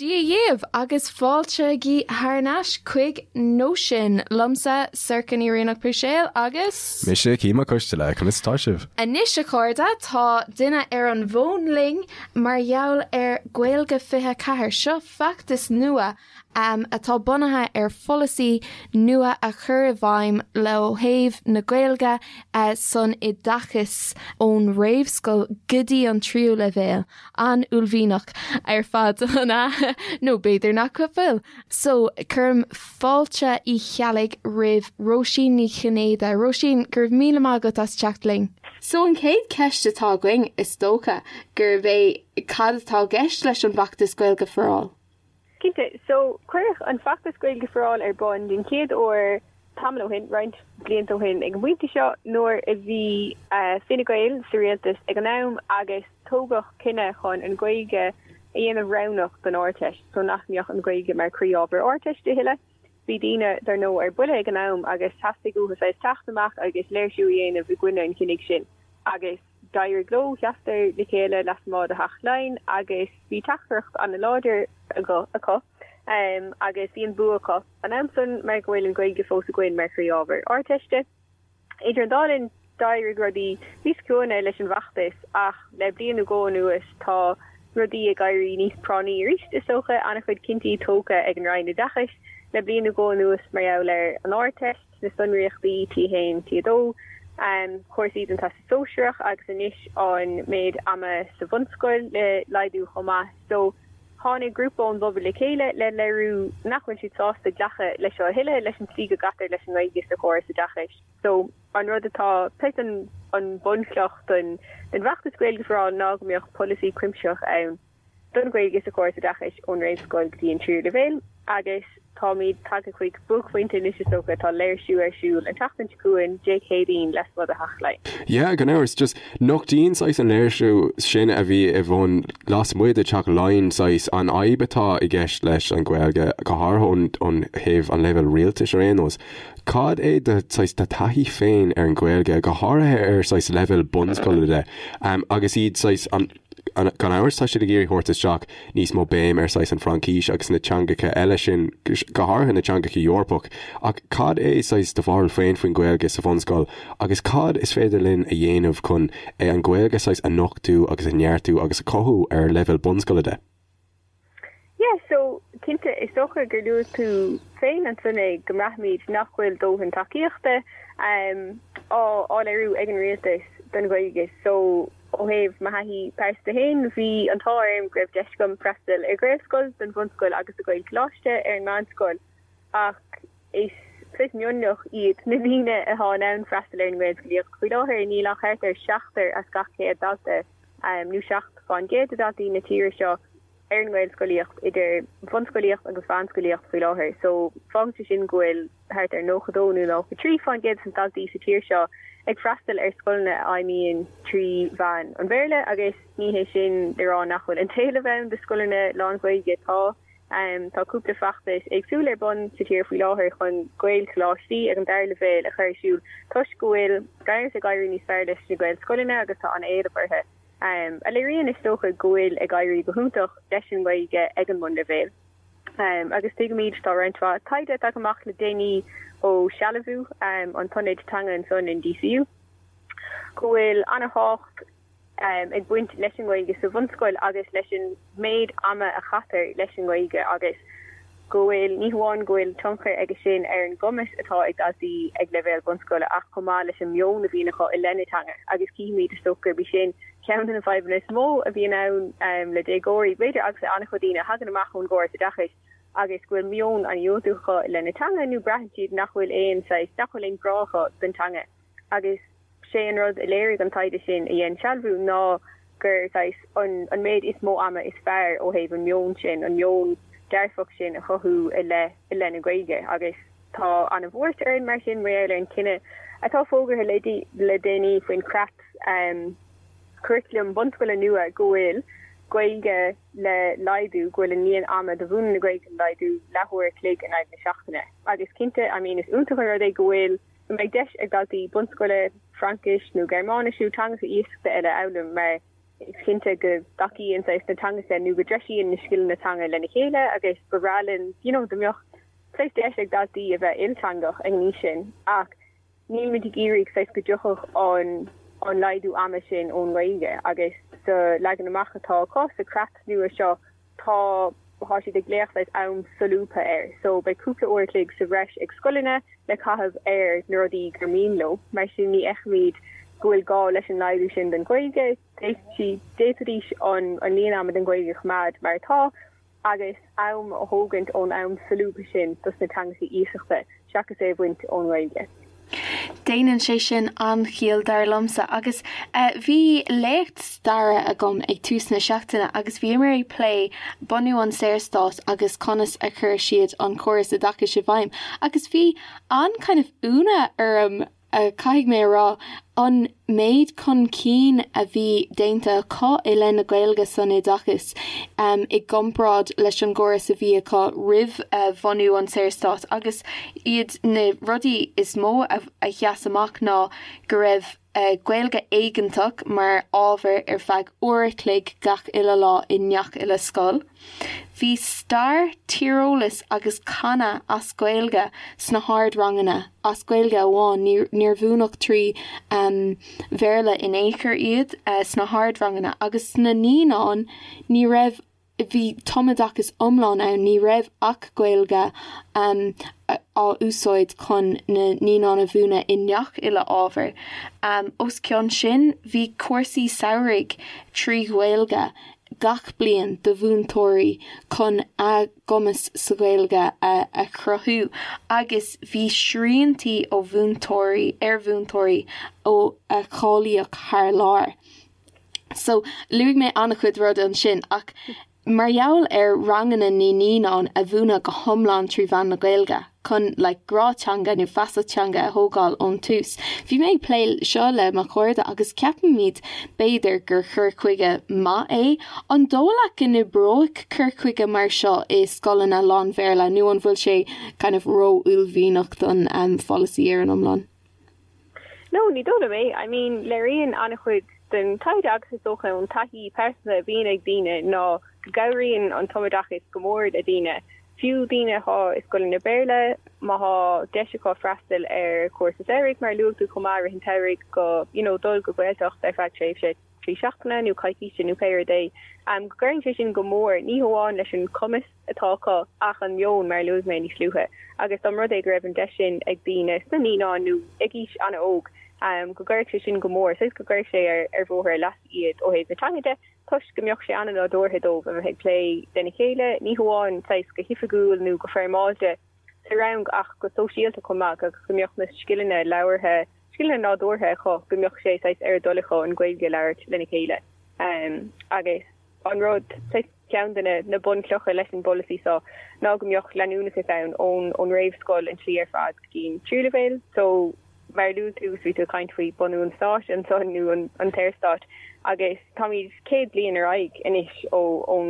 Dia dhaoibh agus fáilte thar n-ais chuig Nóisean, liomsa, Sorcha Ní Rianach Puiséal agus. Mise, Cian Mac Coisteala, conas atá sibh? Anois a chairde, tá duine ar an bhfón linn mar gheall ar Gaeilge 24. Seo feachtas nua atá bunaithe ar pholasaí nua a chur i bhfeidhm ó thaobh na Gaeilge san oideachas ón réamhscoil go dtí an tríú leibhéal. An-uaillmhianach ar fad, an ea? Nó b'fhéidir nach bhfuil. So, cuirim fáilte Uí Cheallaigh roimh Róisín Ní Chinnéide. Róisín, go raibh míle maith agat as teacht linn. So, an chéad cheist atá againn, is dócha, gurb é cad atá i gceist leis an bhfeachtas Gaeilge for All? Cinnte. So, cuireadh an feachtas Gaeilge for All ar bun den chéad uair tamall ó shin, roinnt blianta ó shin ag an bpointe seo, nuair a bhí Fine Gael sa rialtas ag an am agus tógadh cinneadh chun an Ghaeilge a dhéanamh roghnach don Ardteist, so nach mbeadh an Ghaeilge mar chroí-ábhar Ardteiste a thuilleadh. Bhí daoine, dar ndóigh, ar buile ag an am agus theastaigh uathu saghas teacht amach agus léirsiú a dhéanamh i gcoinne an chinnidh sin agus d'éirigh leo, sheasadar le chéile lasmuigh de Theach Laighean agus bhí teachtaireacht an-láidir acu agus bhí an bua acu an am san mar go bhfuil an Ghaeilge fós againn mar chroí-ábhar Ardteiste. Idir an dá linn, d'éirigh rudaí níos ciúine leis an bhfeachtas ach le bliain nó dhó anuas tá rudaí ag éirí níos práinní arís, is dócha. An-chuid cinntí tógtha ag an Roinn Oideachais le bliain nó dhó anuas mar gheall ar an Ardteist, na sonraíochtaí T1, T2, cúrsaí don Teastas Sóisearach agus anois an méid ama sa bhunscoil le laghdú chomh maith. So, tháinig grúpa ón bpobal le chéile le léiriú nach bhfuil siad sásta glacadh leis seo a thuilleadh, leis an tslí go gcaitear leis an nGaeilge sa chóras oideachais. So, an rud atá, saghas an an bunchloch don don bhfeachtas Gaeilge for All ná go mbeadh polasaí cuimsitheach ann don Ghaeilge sa chóras oideachais ón réamhscoil go dtí an tríú leibhéal agus táimid tagtha chuig buaicphointe anois is dócha, tá léirsiú ar siúl an tseachtain seo chugainn, Dé Céadaoin, lasmuigh de Theach Laighean. Yeah, gan amhras, just nochtaíonn saghas an léirsiú sin a bhí ar bun lasmuigh de Theach Laighean saghas an fhadhb atá i gceist leis an Ghaeilge, go háirithe ón thaobh an leibhéal rialtais ar aon nós. Cad é do saghas do taithí féin ar an Ghaeilge, go háirithe ar saghas leibhéal bunscoile de, agus iad saghas an Gan amhras, tá siad ag iarraidh thabhairt isteach níos mó béim ar saghas an Fraincis agus na teangacha eile sin, go háirithe na teangacha Eorpach. Ach cad é saghas do bharúil féin faoin Ghaeilge sa bhunscoil agus cad is féidir linn a dhéanamh chun an Ghaeilge saghas a nochtú agus a neartú agus a chothú ar leibhéal bunscoile de? Yeah, so, cinnte, is dócha gur luaigh tú féin ansan é, go mbraithimid nach bhfuil dóthain tacaíochta. Á léiriú ag an rialtas don Ghaeilge. So, ó thaobh mo thaithí pearsanta féin, bhí an t-ádh orm go raibh deis agam freastal ar Ghaelscoil don bhunscoil agus do Ghaelcholáiste ar an meánscoil ach is saghas mionlach iad na daoine atá in ann freastal ar an nGaelscolaíocht faoi láthair. Níl ach thart ar seachtar as gach 100 dalta, nó 7% de dhaltaí na tíre seo, ar an nGaelscolaíocht idir bhunscolaíocht agus mheánscolaíocht faoi láthair. So, fágann sé sin go bhfuil thart ar 92 nó 93% de na daltaí sa tír seo ag freastal ar scoileanna a fheidhmíonn trí mheán an Bhéarla agus ní hé sin le rá nach bhfuil an t-éileamh ann do scoileanna lán-Ghaeilge. Tá. Tá cúpla feachtas éagsúil ar bun sa tír faoi láthair chun Gaelcholáistí ag an dara leibhéal a chur ar siúl toisc go bhfuil gan amhras ag éirí níos fearr leis na Gaelscoileanna agus tá an-éileamh orthu, a léiríonn is dócha go bhfuil ag éirí go hiontach leis an nGaeilge ag an mbunleibhéal. Agus tuigimid, tá roinnt mhaith taighde tagtha amach le déanaí ó Sealbhú, an t-ionad teanga ansan in DCU, go bhfuil an-thábhacht ag baint leis an nGaeilge sa bhunscoil agus leis an méid ama a chaitear leis an nGaeilge agus go bhfuil, ní hamháin go bhfuil tionchar aige sin ar an gcumas atá ag daltaí ag leibhéal bunscoile ach chomh maith leis an meon a bhíonn acu i leith na teanga agus cífimid is dócha gurb í sin ceann de na fadhbanna is mó a bhíonn ann le déagóirí, b'fhéidir, agus le an-chuid daoine a thagann amach ón gcóras oideachais agus go bhfuil meon an-dhiúltach acu i leith na teanga nó braitheann siad nach bhfuil aon saghas, nach bhfuil aon ghrá acu don teanga agus sé an rud a léirigh an taighde sin a dhein Sealbhú ná gur saghas an an méid is mó ama is fearr ó thaobh an meon sin, an meon dearfach sin a chothú i leith i leith na Gaeilge agus tá an-bhuairt orainn mar sin mar gheall ar an chinneadh atá fógartha le le déanaí faoin chreat curaclaim bunscoile nua go bhfuil Gaeilge le laghdú, go bhfuil an líon ama do mhúineadh na Gaeilge le laghdú leathuair a chloig in aghaidh na seachtaine agus cinnte I mean is iontach an rud é go bhfuil go mbeidh deis ag daltaí bunscoile Fraincis nó Gearmáinis nó teangacha iasachta eile a fhoghlaim mar is cinnte go dtacaíonn saghas na teangacha nó go dtreisíonn na scileanna teanga lena chéile agus ba bhreá linn you know dá mbeadh saghas deis ag daltaí a bheith ilteangach ag an aois sin ach nílimid ag iarraidh saghas go dtiocfadh an an laghdú ama sin ón nGaeilge agus sa leagan amach atá acu sa chreat nua seo Tá, tá siad ag glaoch saghas am solúbtha air. So beidh cúpla uair a chloig sa bhreis ag scoileanna le caitheamh ar na rudaí gur mian leo. Mar sin ní fheicimid go bhfuil gá leis an laghdú sin don Ghaeilge. D'fhéadfaidís an líon ama don Ghaeilge a choimeád mar atá agus am a thógaint ón am solúbtha sin dos na teangacha iasachta seachas é a bhaint ón nGaeilge. Déanann sé sin an-chiall dar liomsa agus bhí léacht staire agam ag tús na seachtaine agus bhíomar ag plé bunú an Saorstáit agus conas a chuir siad an córas oideachais i bhfeidhm agus bhí an kind of ionadh orm caithfidh mé a rá an méid chun cinn a bhí déanta acu i leith na Gaeilge san oideachas i gcomparáid leis an gcóras a bhí acu roimh bhunú an tSaorstáit agus iad na rudaí is mó a sheas amach ná go raibh Gaeilge éigeantach mar ábhar ar feadh uair a chloig gach uile lá i ngach uile scoil. Bhí stair, tíreolas agus canadh as Gaeilge sna hardranganna, as Gaeilge amháin, níor mhúineadh trí Bhéarla in aon chor iad sna hardranganna agus sna naíonáin ní raibh, bhí tumoideachas iomlán ann, ní raibh ach Gaeilge á úsáid chun na naíonáin a mhúineadh i ngach uile ábhar. Os cionn sin, bhí cúrsaí samhraidh trí Ghaeilge gach bliain do mhúinteoirí chun a gcumas sa Ghaeilge a chruthú agus bhí sriantaí ó mhúinteoirí ar mhúinteoirí ó a cháilíodh thar lear. So, luaigh mé an-chuid rudaí ansin ach mar gheall ar ranganna na naíonán a mhúineadh go hiomlán trí mheán na Gaeilge chun like grá teanga nó feasacht teanga a thógáil ón tús. Bhí mé ag plé seo le mo chairde agus ceapaimid b'fhéidir gur cur chuige maith é. An dóigh leat go n-oibreoidh cur chuige mar seo i scoileanna lán-Bhéarla nó an bhfuil sé kind of ró-uaillmhianach don pholasaí ar an iomlán? No, ní dóigh liom é. I mean, léiríonn an-chuid den taighde agus is dócha ón taithí pearsanta a bhíonn ag daoine ná go gcabhraíonn an tumoideachas go mór le daoine, fiú daoine atá i scoileanna Béarla, má thá deis acu freastal ar chúrsa samhraidh, mar a luaigh tú chomh maith, i rith an tsamhraidh, go, you know, dul go Gaeltacht ar feadh tréimhse. 3 seachtaine nó coicíse nó pé rud é, go gcuireann sé sin go mór, ní hamháin leis an cumas atá acu ach an meon, mar a luaigh mé níos luaithe. Agus dá mba rud é go raibh an deis sin ag daoine sna naíonáin nó ag aois an-óg, go gcuirfeadh sé sin go mór, saghas go gcuirfeadh sé ar bhóthar a leasa iad ó thaobh na teanga de, toisc go mbeadh sé an-nádúrtha dóibh a bheith ag plé lena chéile, ní hamháin saghas go hoifigiúil nó go foirmeálta sa rang ach go sóisialta chomh maith agus go mbeadh na scileanna labhartha, scileanna nádúrtha acu, go mbeadh sé saghas ar a dtoil acu an Ghaeilge a labhairt lena chéile. Agus an rud, saghas ceann de na bunchlocha leis an bpolasaí seo ná go mbeadh leanúnachas ann ón réamhscoil an tslí ar fad go dtí an tríú leibhéal. So. Mar a luaigh tú, bhí tú ag caint faoi bunú an stáit ansan nó an tSaorstáit agus táimid 100 bliain ar aghaidh anois ó ón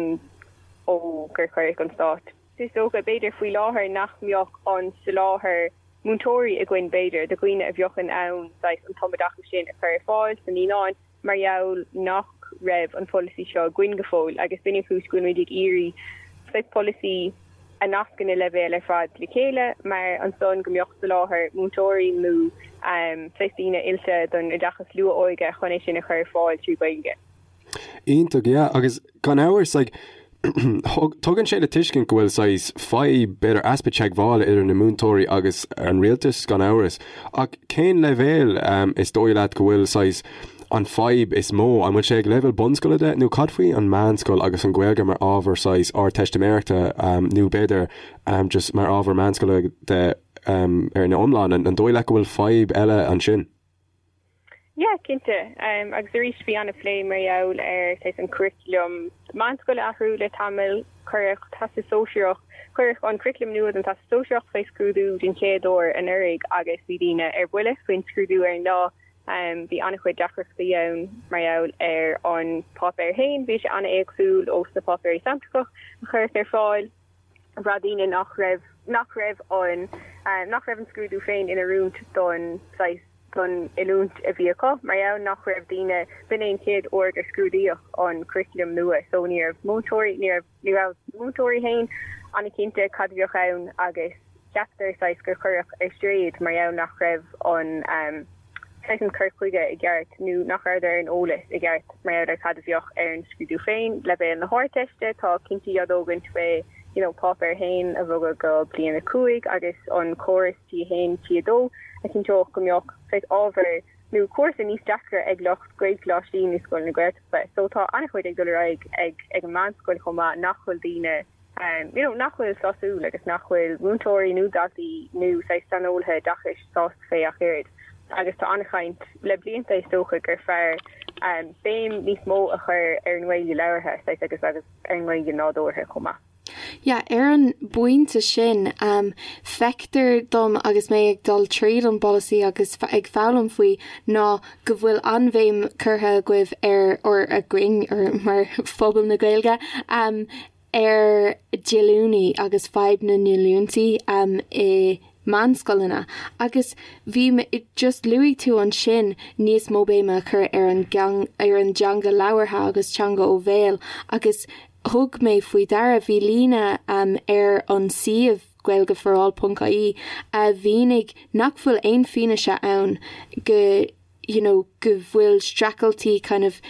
ó gur cuireadh an stát. Is dócha, b'fhéidir, faoi láthair nach mbeadh an soláthar múinteoirí againn, b'fhéidir, do dhaoine a bheadh in ann saghas an tumoideachas sin a chur ar fáil sna naíonáin mar gheall nach raibh an polasaí seo againn go fóill agus b'in an chúis go bhfuilimid ag iarraidh saghas polasaí a nascann na leibhéil ar fad le chéile mar ansan go mbeadh soláthar múinteoirí nó saghas daoine oilte don oideachas luath-óige chun é sin a chur ar fáil trí Ghaeilge. Iontach, yeah, agus gan amhras, like, tugann sé le tuiscint go bhfuil saghas fadhb, b'fhéidir easpa teagmhála idir na múinteoirí agus an rialtas, gan amhras. Ach cén leibhéal is dóigh leat go bhfuil saghas an fadhb is mó? An bhfuil sé ag leibhéal bunscoile de nó cad faoi an meánscoil agus an Ghaeilge mar ábhar saghas Ardteistiméireachta nó b'fhéidir just mar ábhar meánscoile de ar an iomlán? An dóigh leat go bhfuil fadhb eile ansin? Yeah, cinnte. Agus arís bhí an-phlé mar gheall ar saghas an curriculum meánscoile a athrú le tamall. Cuireadh Teastas Sóisearach, cuireadh an curriculum nua don Teastas Sóisearach fé scrúdú den chéad uair anuraidh agus bhí daoine ar buile faoin scrúdú ar an lá. Bhí an-chuid deacrachtaí ann mar gheall ar an páipéar féin, bhí sé an-éagsúil ós na páipéirí samplacha a cuireadh ar fáil. Bhraith daoine nach raibh, nach raibh an, nach raibh an scrúdú féin in oiriúint don saghas, don oiliúint a bhí acu, mar gheall nach raibh daoine, b'in é an chéad uair gur scrúdaíodh an curriculum nua so ní raibh múinteoirí, ní raibh, ní raibh na múinteoirí féin an-chinnte cad a bheadh ann agus ceaptar saghas gur cuireadh ar strae iad mar gheall nach raibh an. saghas an cur chuige i gceart nó nach rabhadar ar an eolas i gceart mar gheall ar cad a bheadh ar an scrúdú féin. Leibhéal na hArdteiste, tá cinntí á dtógaint fé you know páipéar 1 a bhogadh go bliain 5 agus an córas T1, T2 a chinnteodh go mbeadh saghas ábhar nó cúrsa níos deacra ag lucht Gaelcholáistí nó scoileanna Gaeltachta. So tá an-chuid ag dul ar aghaidh ag ag an meánscoil chomh maith nach bhfuil daoine you know, nach bhfuil sásúil agus nach bhfuil múinteoirí nó daltaí nó saghas saineolaithe oideachais sásta fé ach oiread. Agus tá an-chaint le blianta is dócha gur fearr béim níos mó a chur ar an nGaeilge labhartha saghas agus agus ar an nGaeilge nádúrtha chomh maith. Yeah, ar an bpointe sin, feictear dom agus mé ag dul tríd an bpolasaí agus ag foghlaim faoi ná go bhfuil an-bhéim curtha agaibh ar, or againn, or mar phobal na Gaeilge, ar dhíolúintí agus fadhb na ndíolúintí i meánscoileanna agus bhí mé, just luaigh tú ansin níos mó béime a chur ar an ar an dteanga labhartha agus teanga ó bhéal agus thug mé faoi deara, bhí líne ar an suíomh gaeilgeforall.ie a mhínigh nach bhfuil aon fianaise ann go you know go bhfuil streachailtí kind of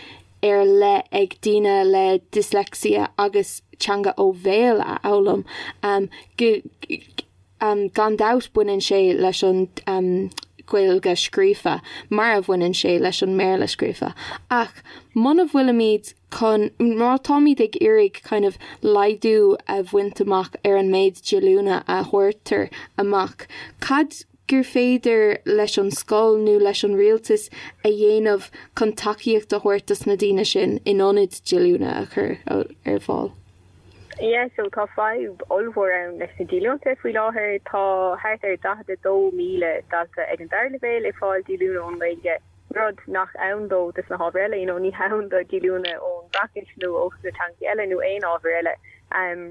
ar leith ag daoine le dyslexia agus teanga ó bhéal a fhoghlaim um, go, um, gan dabht baineann sé leis an um, Ghaeilge scríofa mar a bhaineann sé leis an mBéarla scríofa. Ach muna bhfuilimid chun, má táimid ag iarraidh kind of laghdú a bhaint amach ar an méid díolúine a thabhartar amach, cad gur féidir leis an scoil nó leis an rialtas a dhéanamh chun tacaíocht a thabhairt dos na daoine sin in ionad díolúine a chur ar fáil? Yeah, so tá fadhb ollmhór ann leis na díolúinte faoi láthair. Tá thart ar 42,000 dalta ag an dara leibhéal ag fáil díolúine ón nGaeilge. rud nach ann dó dos na hábhair eile, you know, ní hann do díolúine ón bhFraincis nó ó sna teangacha eile nó aon ábhar eile.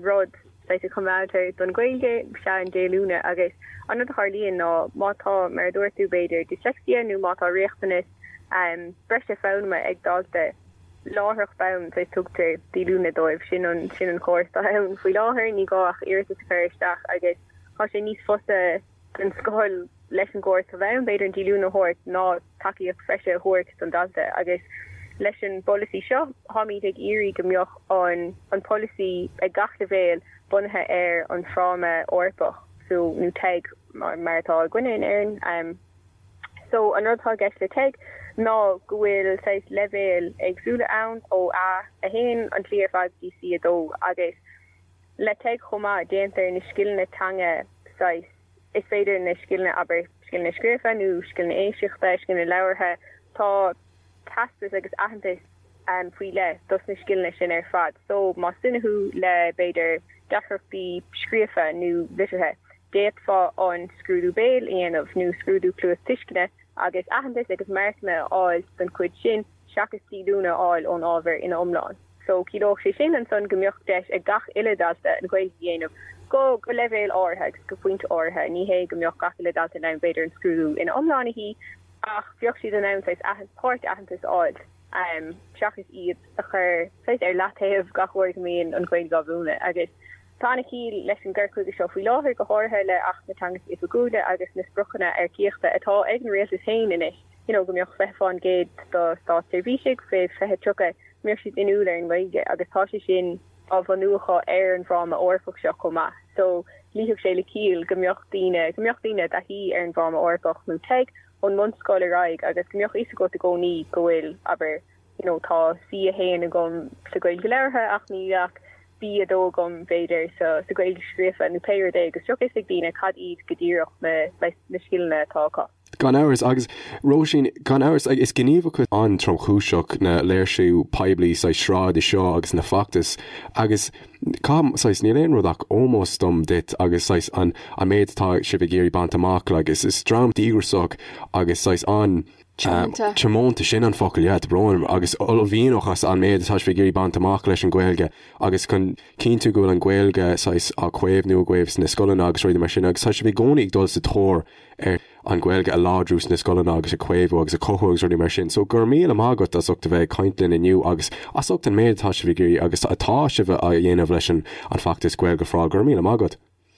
Rud saghas a choimeádtar don Ghaeilge is ea an díolúine agus an rud a tharlaíonn ná má tá, mar a dúirt tú, b'fhéidir dyslexia nó má tá riachtanas breise foghlama ag dalta, láithreach bonn saghas tugtar díolúine dóibh. Sin an, sin an córas atá ann faoi láthair, ní gá ach iarratas a chur isteach agus tá sé níos fusa don scoil leis an gcóras atá ann, b'fhéidir an díolúine a thabhairt ná tacaíocht bhreise a thabhairt don dalta agus. Leis an bpolasaí seo, táimid ag iarraidh go mbeadh an an polasaí ag gach leibhéal bunaithe ar an Fráma Eorpach, so, nó TEG mar atá againne in Éirinn. So, an rud atá i gceist le TEG ná go bhfuil saghas leibhéil éagsúla ann, ó A1 an tslí ar fad go dtí C2 agus le TEG chomh maith déantar na scileanna teanga saghas, is féidir na scileanna, abair, scileanna scríofa nó scileanna éisteachta, scileanna labhartha, tá teastas agus aitheantas faoi leith dos na scileanna sin ar fad. So, más duine thú le, b'fhéidir, deacrachtaí scríofa nó liteartha, d'fhéadfá an scrúdú béil a dhéanamh nó scrúdú cluastuisceana agus aitheantas agus marcanna a fháil don chuid sin seachas díolúine a fháil ón ábhar ina iomlán. So, ciallódh sé sin ansan go mbeadh deis ag gach uile dalta an Ghaeilge a dhéanamh go go leibhéal áirithe agus go pointe áirithe. Ní hé go mbeadh gach uile dalta in ann b'fhéidir an scrúdú ina iomlán a shuí ach bheadh siad in ann saghas páirt-aitheantas a fháil seachas iad a chur saghas ar leataobh gach uair go mbíonn an Ghaeilge á mhúineadh. Agus tá an-chiall leis an gcur chuige seo faoi láthair, go háirithe le Acht na Teangacha Oifigiúla agus na spriocanna earcaíochta atá ag an rialtas féin anois, you know go mbeadh 20% do státseirbhísigh fé 2030, go mbeadh siad inniúil ar an nGaeilge agus tá sé sin á bhunú acu ar an bhFráma Eorpach seo chomh maith. So luífeadh sé le ciall go mbeadh daoine, go mbeadh daoine i dtaithí ar an bhFráma Eorpach nó TEG ón mbunscoil ar aghaidh agus go mbeadh fhios agat i gcónaí go bhfuil, abair, you know tá C1 agam sa Ghaeilge labhartha ach níl ach B2 agam b'fhéidir sa sa Ghaeilge scríofa nó pé rud é agus bheadh fhios ag daoine cad iad go díreach na na scileanna atá acu. Gan amhras, agus Róisín, gan amhras, is gníomhaíocht an-tromchúiseach na léirsiú poiblí saghas sráide seo agus na feachtais agus caithim, saghas, níl aon rud ach ómós dom duit agus saghas an an méid atá sibh ag iarraidh baint amach, like, is is dream díograiseach agus saghas an Tiomanta. Tiomanta, sin an focal, yeah, tá brón orm, agus uaillmhianach as an méid atá sibh ag iarraidh baint amach leis an Ghaeilge agus chun cinntiú go bhfuil an Ghaeilge saghas á caomhnú agaibh sna scoileanna agus rudaí mar sin agus tá sibh i gcónaí ag dul sa tóir ar an Ghaeilge a láidriú sna scoileanna agus a chaomhnú agus a chothú agus rudaí mar sin. So go raibh míle maith agat as ucht a bheith ag caint linn inniu agus as ucht an méid atá sibh ag iarraidh agus atá sibh a dhéanamh leis an feachtas Gaeilge for All. Go raibh míle maith agat.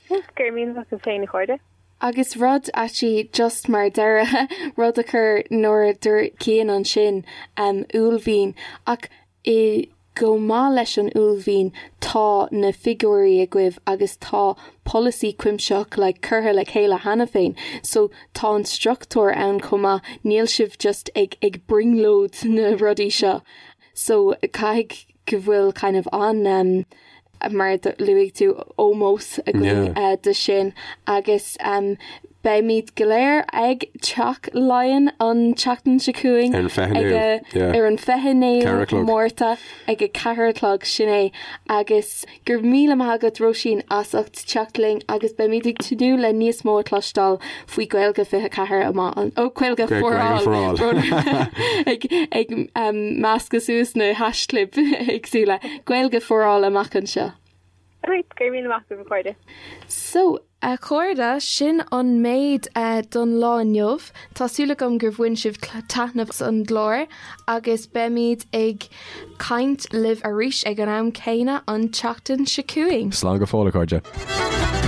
Go raibh míle maith agat féin a chairde. Agus rud actually just mar deireadh, rud a chuir nuair a dúirt Cian ansin, uaillmhian, ach i chomh maith leis an uaillmhian tá na figiúirí agaibh agus tá polasaí cuimsitheach like curtha le chéile cheana féin so tá an struchtúr ann chomh maith, níl sibh just ag ag brionglóid na rudaí seo. So caithfidh go bhfuil kind of an um, mar luaigh tú ómós againn yeah. uh, do sin agus um, beimid go léir ag Teach Laighean an tseachtain seo chugainn ar an 29ú Márta ag a 4 a chlog sin é agus go raibh míle maith agat Róisín as ucht teacht linn agus beimid ag tnúth le níos mó a chloisteáil faoi Gaeilge 24 amach an ó Gaeilge for All ag ag um, meascadh suas na haischlib éagsúla Gaeilge for All amach anseo. Right, go raibh míle maith agat a chairde. So, a chairde, sin an méid don lá inniu. Tá súil agam gur bhain sibh taitneamh as an gclár agus beimid ag caint libh arís ag an am céanna an tseachtain seo chugainn. Slán go fóill, a chairde.